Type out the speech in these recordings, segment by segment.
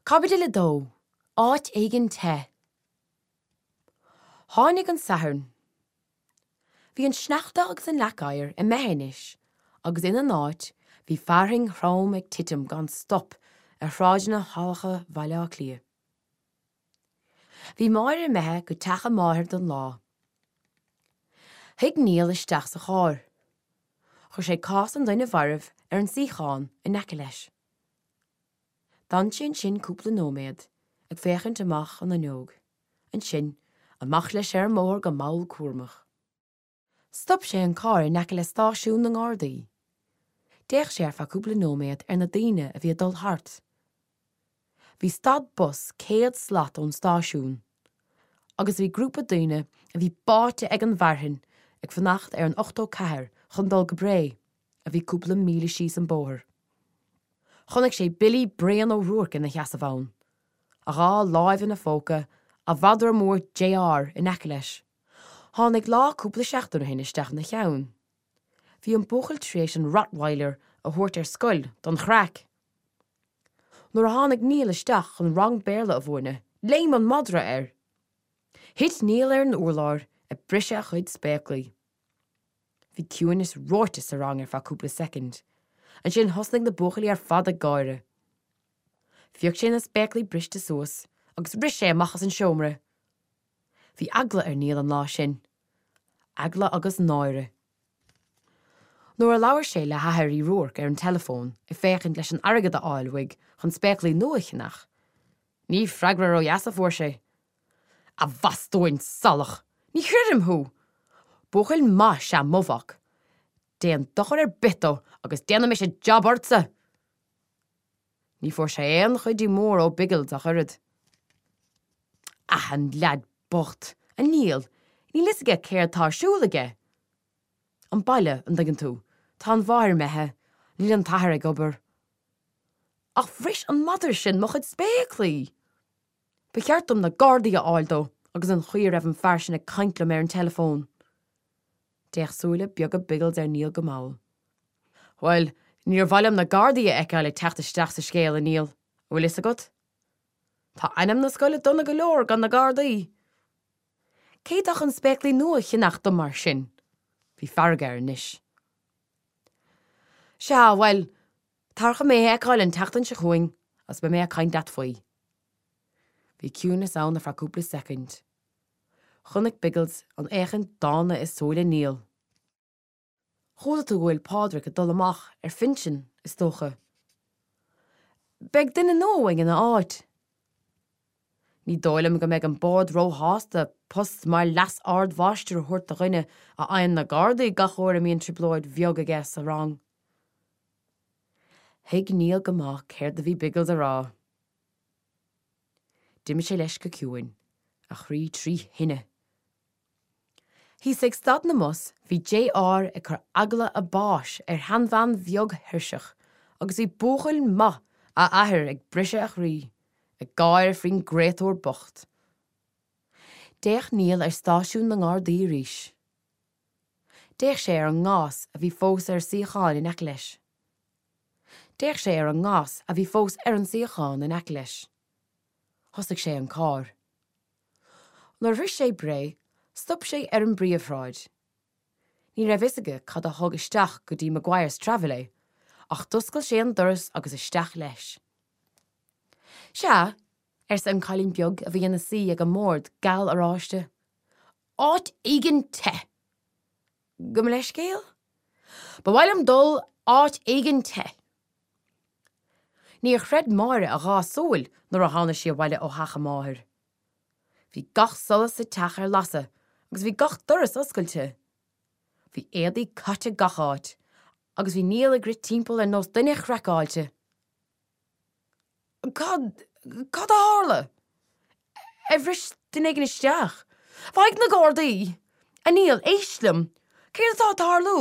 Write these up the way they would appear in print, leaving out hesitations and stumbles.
Caibidil 2, Áit éigin te. Tháinig an Satharn. Bhí an sneachta agus an leac oighir imithe anois agus ina n-áit bhí fearthainn throm ag titim gan stop ar shráideanna salacha Bhaile Átha Cliath. Bhí Máire imithe go teach a máthar don lá. Shuigh Niall isteach sa charr. Chuir sé cás an duine mhairbh ar an suíochán in aice leis. D'fhan sé ansin cúpla nóiméad, ag féachaint amach an fhuinneog. Ansin, amach leis ar an mbóthar go mall cúramach. Stop sé an carr in aice le stáisiún na nGardaí. D'fhéach sé ar feadh cúpla nóiméad ar na daoine a bhí ag dul thart. Bhí stad bus 100 slat ón stáisiún agus bhí grúpa daoine a bhí báite ag an bhfearthainn ag fanacht ar an 84 chun dul go Bré, a bhí cúpla míle síos an bóthar. Chonaic sé Billy Bréan Ó Ruairc ina sheasamh ann, a dhá láimh ina phóca, a mhadra mór JR in aice leis. Tháinig lá cúpla seachtain ó shin isteach ina cheann. Bhí an buachaill tar éis an Rottweiler a thabhairt ar scoil don chraic. Nuair a tháinig Niall isteach chun rang Béarla a mhúineadh, léim an madra air. Thit Niall ar an urlár ag briseadh a chuid spéaclaí. Bhí ciúineas reoite sa rang ar feadh cúpla soicind. Ansin thosnaigh na buachaillí ar fad ag gáire. Phioc sé na spéaclaí briste suas agus rith sé amach as an seomra. Bhí eagla ar Niall an lá sin. Eagla agus náire. Nuair a labhair sé le hathair Uí Ruairc ar an teileafón ag féachaint leis an airgead a fháil uaidh chun spéaclaí nua a cheannach, ní freagra ródheas a fuair sé. A bhastúin salach! Ní chreidim thú! Buachaill maith is ea mo mhac. Déan dochar ar bith dó agus déanfaidh mise jab ortsa! Ní fuair sé aon chuidiú mór ó Biggles ach oiread. Ah, an leaid bocht, a Niall, níl fhios aige céard tá ar siúl aige! An baile, an dtuigeann tú, tá an mháthair imithe, níl an t-athair ag obair. Ach bhris an madra sin mo chuid spéaclaí! Ba cheart dom na Gardaí a fháil dó agus an chaoi a raibh an fear sin ag caint liom ar an teileafón. D'fhéach súile beaga Biggles ar Niall go mall. Bhuel, níor mhaith liom na Gardaí a fheiceáil ag teacht isteach sa scéal, a Niall, an bhfuil fhios agat? Tá ainm na scoile dona go leor gan na Gardaí. Cé atá chun spéaclaí nua a cheannach dom mar sin? Bhí fearg air anois. Sea, bhuel, tar chun mé a fheiceáil an tseachtain seo chugainn agus beidh mé ag caint leat faoi. Bhí ciúnas ann ar feadh cúpla soicind. Chonaic Biggles an fhéachaint dána i súile Niall. Chuala tú go bhfuil Pádraig ag dul amach ar phinsean, is dócha. Beidh duine nua uainn ina áit. Ní dóigh liom go mbeidh an Bord róshásta post mar leas-ardmháistir a thabhairt do dhuine a fhaigheann na Gardaí gach uair a mbíonn trioblóid bheag aige sa rang. Thuig Niall go maith céard a bhí Biggles a rá. D'imigh sé leis go ciúin, a chroí trí thine. Thíos ag stad na mbus bhí JR ag cur eagla a báis ar sheanbhean bheag thuirseach agus bhí buachaill maith a athar ag briseadh a chroí, ag gáire faoin gcréatúr bocht. D'fhéach Niall ar stáisiún na nGardaí arís. D'fhéach sé ar an ngás a bhí fós ar suíochán in aice leis. D'fhéach sé ar an ngas a bhí fós ar an suíochán in aice leis. Thosaigh sé an carr. Nuair a shroich sé Bré, stop sé ar an bpríomhshráid. Ní raibh fhios aige cad a thug isteach go dtí Maguire's Travel é, ach d'oscail sé an doras agus isteach leis. Sea, arsa an cailín beag a bhí ina suí ag an mbord geal oráiste. Áit éigin te! Gabh mo leithscéal? Ba mhaith liom dul áit éigin te. Níor chreid Máire a dhá súil nuair a tháinig sí abhaile ó theach a máthar. Bhí gach solas sa teach ar lasadh agus bhí gach doras oscailte. Bhí éadaí caite gach áit agus bhí Niall ag rith timpeall ar nós duine chraiceáilte. Cad, cad a tharla? Ar bhris duine éigin isteach? Faigh na Gardaí! A Niall, éist liom! Céard atá ag tarlú?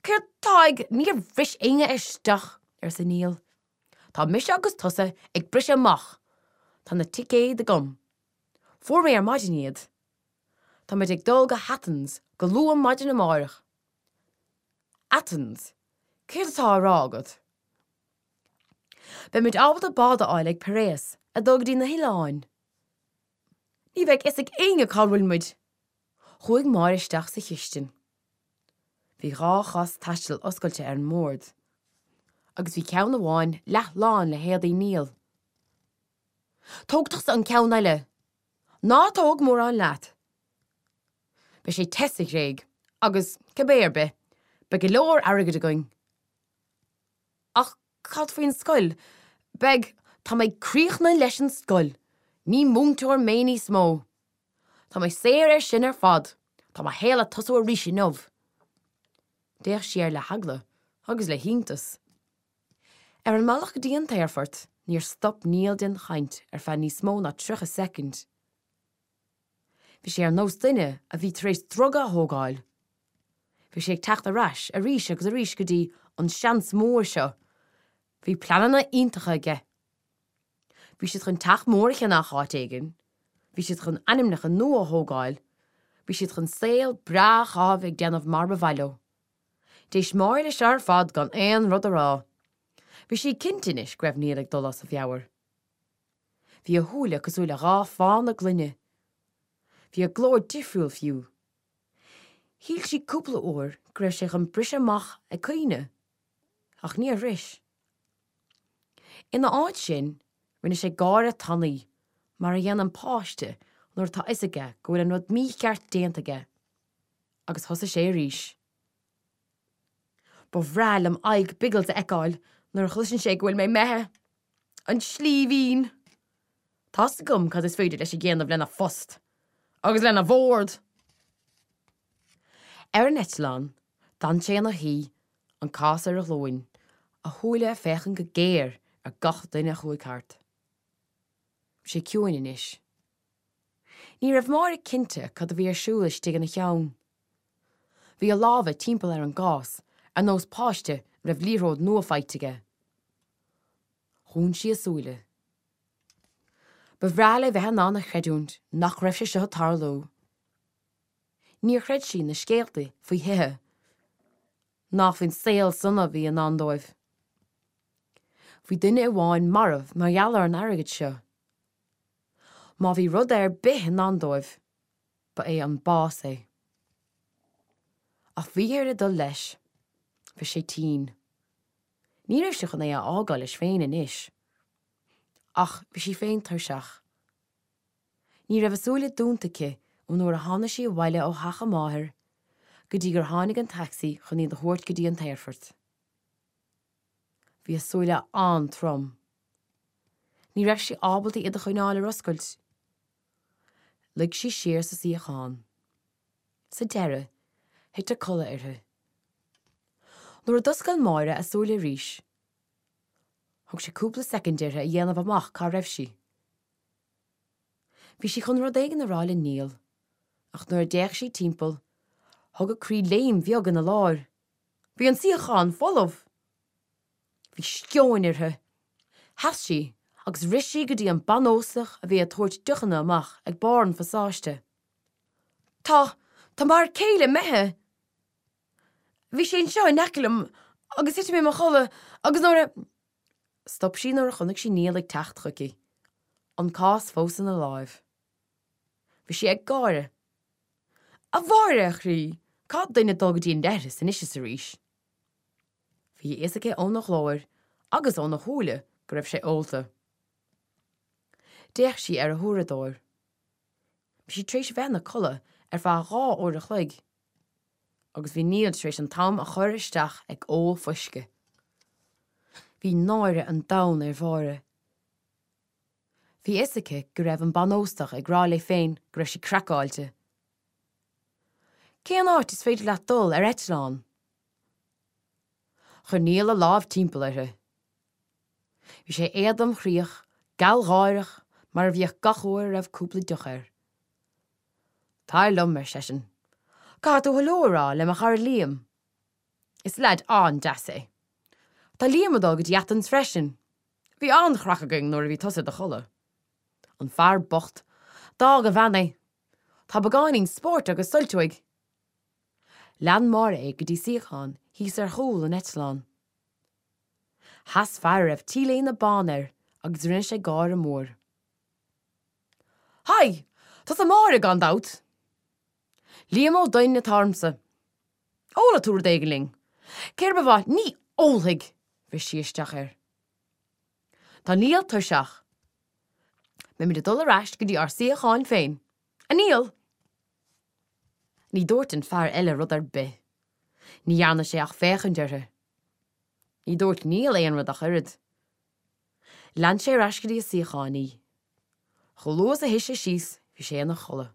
Céard atá ag, níor bhris éinne isteach, arsa Niall. Tá mise agus tusa ag briseadh amach. Tá na ticéid agam. Fuair mé ar maidin iad. Táimid ag dul go hAthens go luath maidin amárach. Athens? Céard atá á rá agat? Beimid ábalta bád a fháil ag Piraeus. Ag dul go dtí na hoileáin. Ní bheidh fhios ag éinne cá bhfuil muid. Chuaigh Máire isteach sa chistin. Bhí dha chás taistil oscailte ar an mbord agus bhí ceann amháin leath lán le héadaí Neil. Tóg tusa an ceann eile! Ná tóg mórán leat! Beidh sé te sa Ghréig agus, cibé ar bith, beidh go leor airgid againn. Ach cad faoin scoil? Beidh, tá mé críochnaithe leis an scoil! Ní múinteoir mé níos mó! Tá mé saor ar sin ar fad! Tá mo shaol ag tosú arís inniu! D'fhéach sí air le heagla agus le hiontas. Ar an mbealach go dtí an t-aerfort, níor stop Neil den chaint ar feadh níos mó ná 30 soicind. Bhí sé ar nós duine a bhí tar éis druga a thógáil. Bhí sé ag teacht ar ais arís agus arís go dtí an seans mór seo. Bhí pleananna iontacha aige. Bhí siad chun teach mór a cheannach áit éigin, bhí siad chun ainmneacha nua a thógáil, bhí siad chun saol breá a chaitheamh ag déanamh mar ba mhaith leo. D'éist Máire leis seo ar fad gan aon rud a rá. Bhí sí cinnte anois go raibh Neil ag dul as a mheabhair. Bhí a shúile cosúil le dha phána gloine. Bhí a ghlór difriúil fiú. Shíl sí cúpla uair go raibh sé chun briseadh amach ag caoineadh, ach níor bhris. Ina áit sin, rinne sé gáire tanaí, mar a dhéanann páiste nuair atá fhios aige go bhfuil an rud mícheart déanta aige, agus thosaigh sé arís. Ba bhreá liom aghaidh Biggles a fheiceáil nuair a chloiseann sé go bhfuil mé imithe. An slíbhín! Tá's agam cad is féidir leis a dhéanamh lena phost. Agus lena bhord! Ar an eitleán, d'fhan sé ina shuí, an cás ar a ghlúin, a shúile ag féachaint go géar ar gach duine a chuaigh thart. Bhí sé ciúin anois. Ní raibh Máire cinnte cad a bhí ar siúl istigh ina cheann. Bhí a lámha timpeall ar an gcás, ar nós páiste a raibh liathróid nua faighte aige. Dhún sí a súile. Ba bhreá léi bheith in ann a chreidiúint nach raibh sé seo ag tarlú. Níor chreid sí na scéalta faoi thithe, ná faoin saol sona a bhí i ndán dóibh. Bhí duine amháin marbh mar gheall ar an airgead seo. Má bhí rud ar bith i ndán dóibh, ba é an bás é. Ach bhí uirthi dul leis. Bhí sé tinn. Ní raibh sí chun é a fhágáil leis féin anois. Ach bhí sí féin tuirseach. Ní raibh a súile dúnta aici ón uair a tháinig sí abhaile ó theach a máthar go dtí gur tháinig an taxi chun iad a thabhairt go dtí an t-aerfort. Bhí a súile an-trom. Ní raibh sí ábalta iad a choinneáil ar oscailt. Luigh sí siar sa suíochán. Sa deireadh, thit a codladh uirthi. Nuair a d'oscail Máire a súile arís, thóg sé cúpla soicind uirthi a dhéanamh amach cá raibh sí. Bhí sí chun rud éigin a rá le Neil, ach nuair a d'fhéach sí timpeall, thug a croí léim bheag ina lár. Bhí an suíochán folamh! Bhí sceoin uirthi. Sheas sí agus rith sí go dtí an banóstach a bhí ag tabhairt deochanna amach ag barr an phasáiste. Tá, tá m'fhear céile imithe! Bhí sé anseo in aice liom agus thit mé i mo chodladh agus nuair a. Stop sí nuair a chonaic sí Neil ag teacht chuici, an cás fós ina láimh. Bhí sé ag gáire. A Mháire, a chroí, caithfidh duine dul go dtí an leithreas anois is arís. Bhí a fhios aici óna ghlór agus óna shúile go raibh sé ólta. D'fhéach sí ar a huaireadóir. Bhí sí tar éis a bheith ina codladh ar feadh dha uair a chloig agus bhí Neil tar éis an t-am a chur isteach ag ól fuisce. Bhí náire an domhain ar Mháire. Bhí a fhios aici go raibh an banóstach ag rá léi féin go raibh sí craiceáilte. Cén áit is féidir leat dul ar eitleán? Chuir Neil a lámh timpeall uirthi. Bhí sé éadromchroíoch, gealgháireach, mar a bhíodh gach uair a raibh cúpla deoch air. Tar liom, ar seisean. Caithfidh tú hello a rá le mo chara Liam. Is leaid an-deas é. Tá Liam ag dul go dtí Athens freisin. Bhí an-chraic againn nuair a bhí tusa i do chodladh. An fear bocht, d'fhág a bhean é. Tá beagáinín spóirt agus suilt uaidh. Lean Máire é go dtí suíochán thíos ar chúl an eitleáin. Sheas fear a raibh t-léine bán air agus rinne sé gáire mór. Haigh! Tusa Máire, gan dabht! Liam Ó Duinn atá ormsa. Ólfaidh tú rud éigin linn. Céard ba mhaith? Ní ólfaidh! Bhris sí isteach air. Tá Niall tuirseach. Beimid ag dul ar ais go dtí ár suíocháin féin. A Niall! Ní dúirt an fear eile rud ar bith. Ní dhearna sé ach féachaint uirthi. Ní dúirt Niall aon rud ach oiread. Lean sé ar ais go dtí a suíochán í. Chomh luath is a shuigh sé síos bhí sé ina chodladh.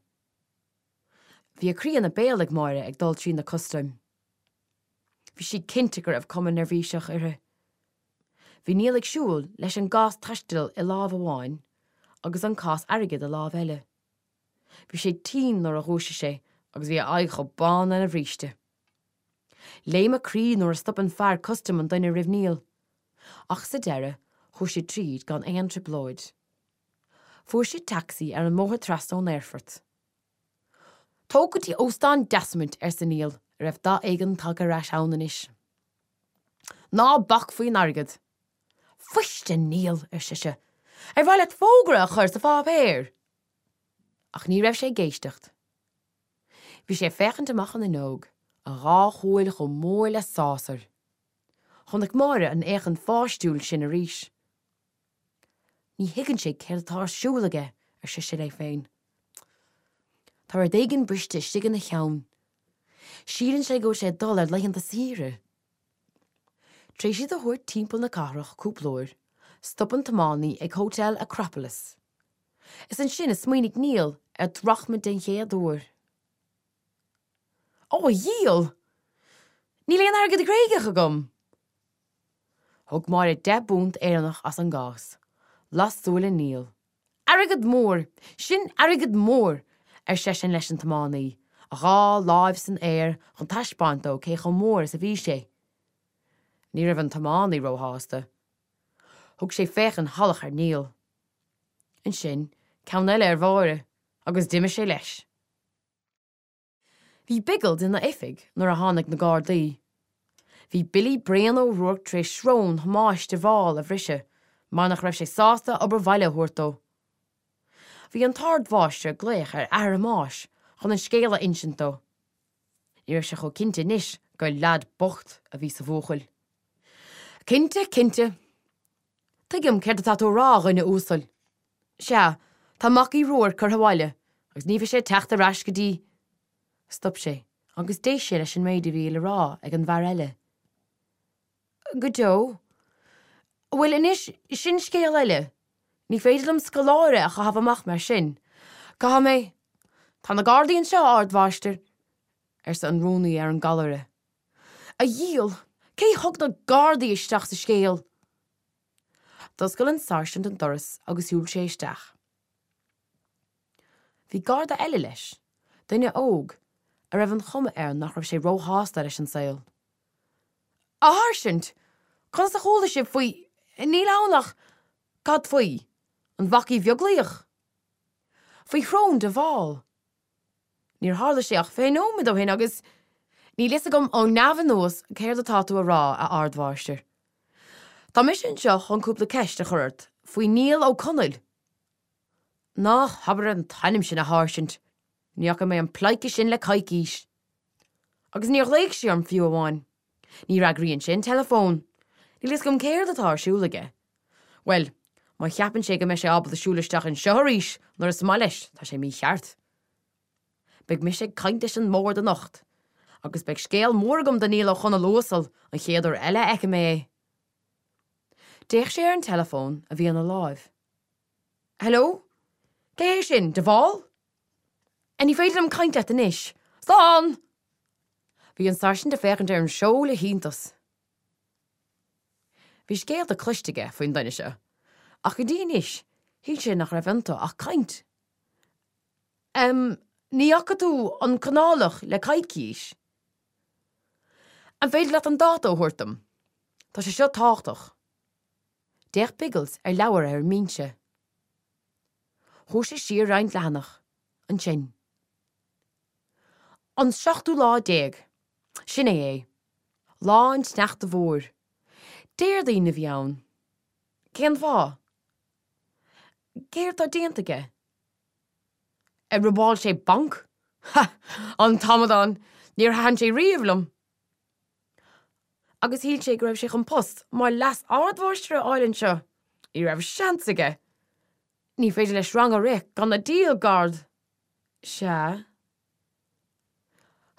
Bhí a croí ina béal ag Máire ag dul trí na custaim. Bhí sí cinnte go raibh cuma neirbhíseach uirthi. Bhí Niall ag siúl leis an gcás taistil i lámh amháin agus an cás airgid i lámh eile. Bhí sé tinn nuair a dhúisigh sé agus bhí a aghaidh chomh bán lena bhríste. Léim a croí nuair a stop an fear custaim an duine roimh Niall. Ach sa deireadh chuaigh siad tríd gan aon trioblóid. Fuair siad tacsaí ar an mbóthar trasna ón aerfort. Tóg go dtí Óstán Desmond, arsa Niall, a raibh dath éigin tagtha ar ais ann anois. Ná bac faoin airgead. Fuist, a Niall, ar sise, ar mhaith leat fógra a chur sa pháipéar? Ach ní raibh sé ag éisteacht. Bhí sé ag féachaint amach an fhuinneog, a dhá shúil chomh mór le sásair. Chonaic Máire an fhéachaint pháistiúil sin arís. Ní thuigeann sé céard atá ar siúl aige, ar sise léi féin. Tá rud éigin briste istigh ina cheann. Síleann sé go bhfuil sé ag dul ar laethanta saoire. Tar éis iad a thabhairt timpeall na cathrach cúpla uair, stop an tiománaí ag Hotel Acropolis. Is ansin a smaoinigh Niall ar drachma den chéad uair. Ó, a dhiabhail! Níl aon airgead Gréigeach agam! Thug Máire £10 Éireannach as an gcás. Las súile Niall. Airgead mór! Sin airgead mór! ar seisean leis an tiománaí, a dhá láimh san aer chun taispeáint dó cé chomh mór is a bhí sé. Ní raibh an tiománaí róshásta. Thug sé féachaint shalach ar Niall. Ansin ceann eile ar Mháire agus d'imigh sé leis. Bhí Biggles ina oifig nuair a tháinig na Gardaí. Bhí Billy Bréan Ó Ruairc tar éis srón Thomáis de Bhál a bhriseadh mar nach raibh sé sásta obair bhaile a thabhairt dó. Bhí an t-ardmháistir ag glaoch ar athair Thomáis chun an scéal a insint dó. Ní raibh sé chomh cinnte anois gur leaid bocht a bhí sa bhuachaill. Cinnte, cinnte. Tuigim céard atá tú a rá, a dhuine uasail. Sea, tá mac Uí Ruairc curtha abhaile agus ní bheidh sé ag teacht ar ais go dtí. Stop sé agus d'éist sé leis an méid a bhí le rá ag an bhfear eile. Go deo. Bhuel, anois, sin scéal eile. Ní féidir liom scoláire a chaitheamh amach mar sin. Caithfidh mé. Tá na Gardaí anseo, a Ardmháistir, arsa an rúnaí ar an gcallaire. A dhiabhail! Cé thug na Gardaí isteach sa scéal? D'oscail an sáirsint an doras agus shiúil sé isteach. Bhí garda eile leis, duine óg, a raibh an chuma air nach raibh sé róshásta leis an saol. A sháirsint! Conas a chuala sibh faoi, níl ann ach, cad faoi? An Mhac Uí Bheaglaoich? Faoi shrón de Bhál? Níor tharla sé ach 20 nóiméad ó shin agus. Níl fhios agam ó neamh anuas céard atá tú a rá, a Ardmháistir. Tá mise anseo chun cúpla ceist a chur ort faoi Niall Ó Conaill. Ná habair an t-ainm sin, a Sháirsint. Ní fhaca mé an pleidhce sin le coicís. Agus níor ghlaoigh sé orm fiú amháin. Ní fhreagraíonn sé an teileafón. Níl fhios agam céard atá ar siúl aige. Bhuel, má cheapann sé go mbeidh sé ábalta siúl isteach anseo arís nuair is maith leis, tá sé mícheart. Beidh mise ag caint leis an mbord anocht, agus beidh scéal mór agam do Niall Ó Conaill uasal an chéad uair eile a fheicfidh mé é. D'fhéach sé ar an teileafón a bhí ina láimh. Hello? Cé hé sin? De Bhál? Ní féidir liom caint leat anois. Slán! Bhí an sáirsint ag féachaint ar an seó le hiontas. Bhí scéalta cloiste aige faoin duine seo, ach go dtí anois shíl sé nach raibh iontu ach caint. Em, ní fhaca tú an Conálach le coicís? An féidir leat an dáta a thabhairt dom? Tá sé seo tábhachtach. D'fhéach Biggles ar leabhar ar an mbinse. Chuaigh sé siar roinnt leathanach. Ansin. An seachtú lá déag. Sin é é. Lá an tsneachta mhóir. Déardaoin a bhí ann. Cén fáth? Céard tá déanta aige? Ar robáil sé banc? Ha! An t-amadán! Níor thaitin sé riamh liom! Agus shíl sé go raibh sé chun post mar leas-ardmháistir a fháil anseo! Ní raibh seans aige! Ní féidir leis rang a rith gan a deal gard! Sea.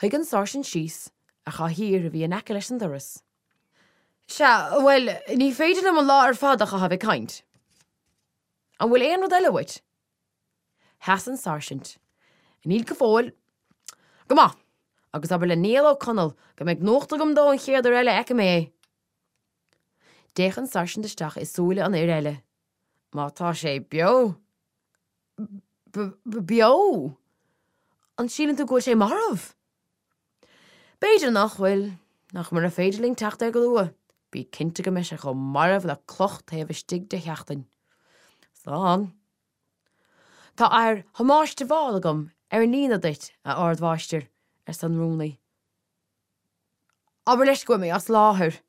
Shuigh an sáirsint síos ar chathaoir a bhí in aice leis an doras. Sea, bhuel, ní féidir liom an lá ar fad a chaitheamh ag caint. An bhfuil aon rud eile uait? Sheas an sáirsint. Níl go fóill. Go maith! Agus abair le Niall Ó Conaill go mbeidh nuacht agam dó an chéad uair eile a fheicim é! D'fhéach an sáirsint isteach i súile an fhir eile. Má tá sé beo. B-b-beo? An síleann tú go bhfuil sé marbh? B'fhéidir nach bhfuil, ach mura féidir linn teacht air go luath, bí cinnte go mbeidh sé chomh marbh le cloch taobh istigh de sheachtain. Slán. Tá athair Thomáis de Bhál agam ar an líne duit, a Ardmháistir, arsa an rúnaí. Abair leis go bhfuil mé as láthair.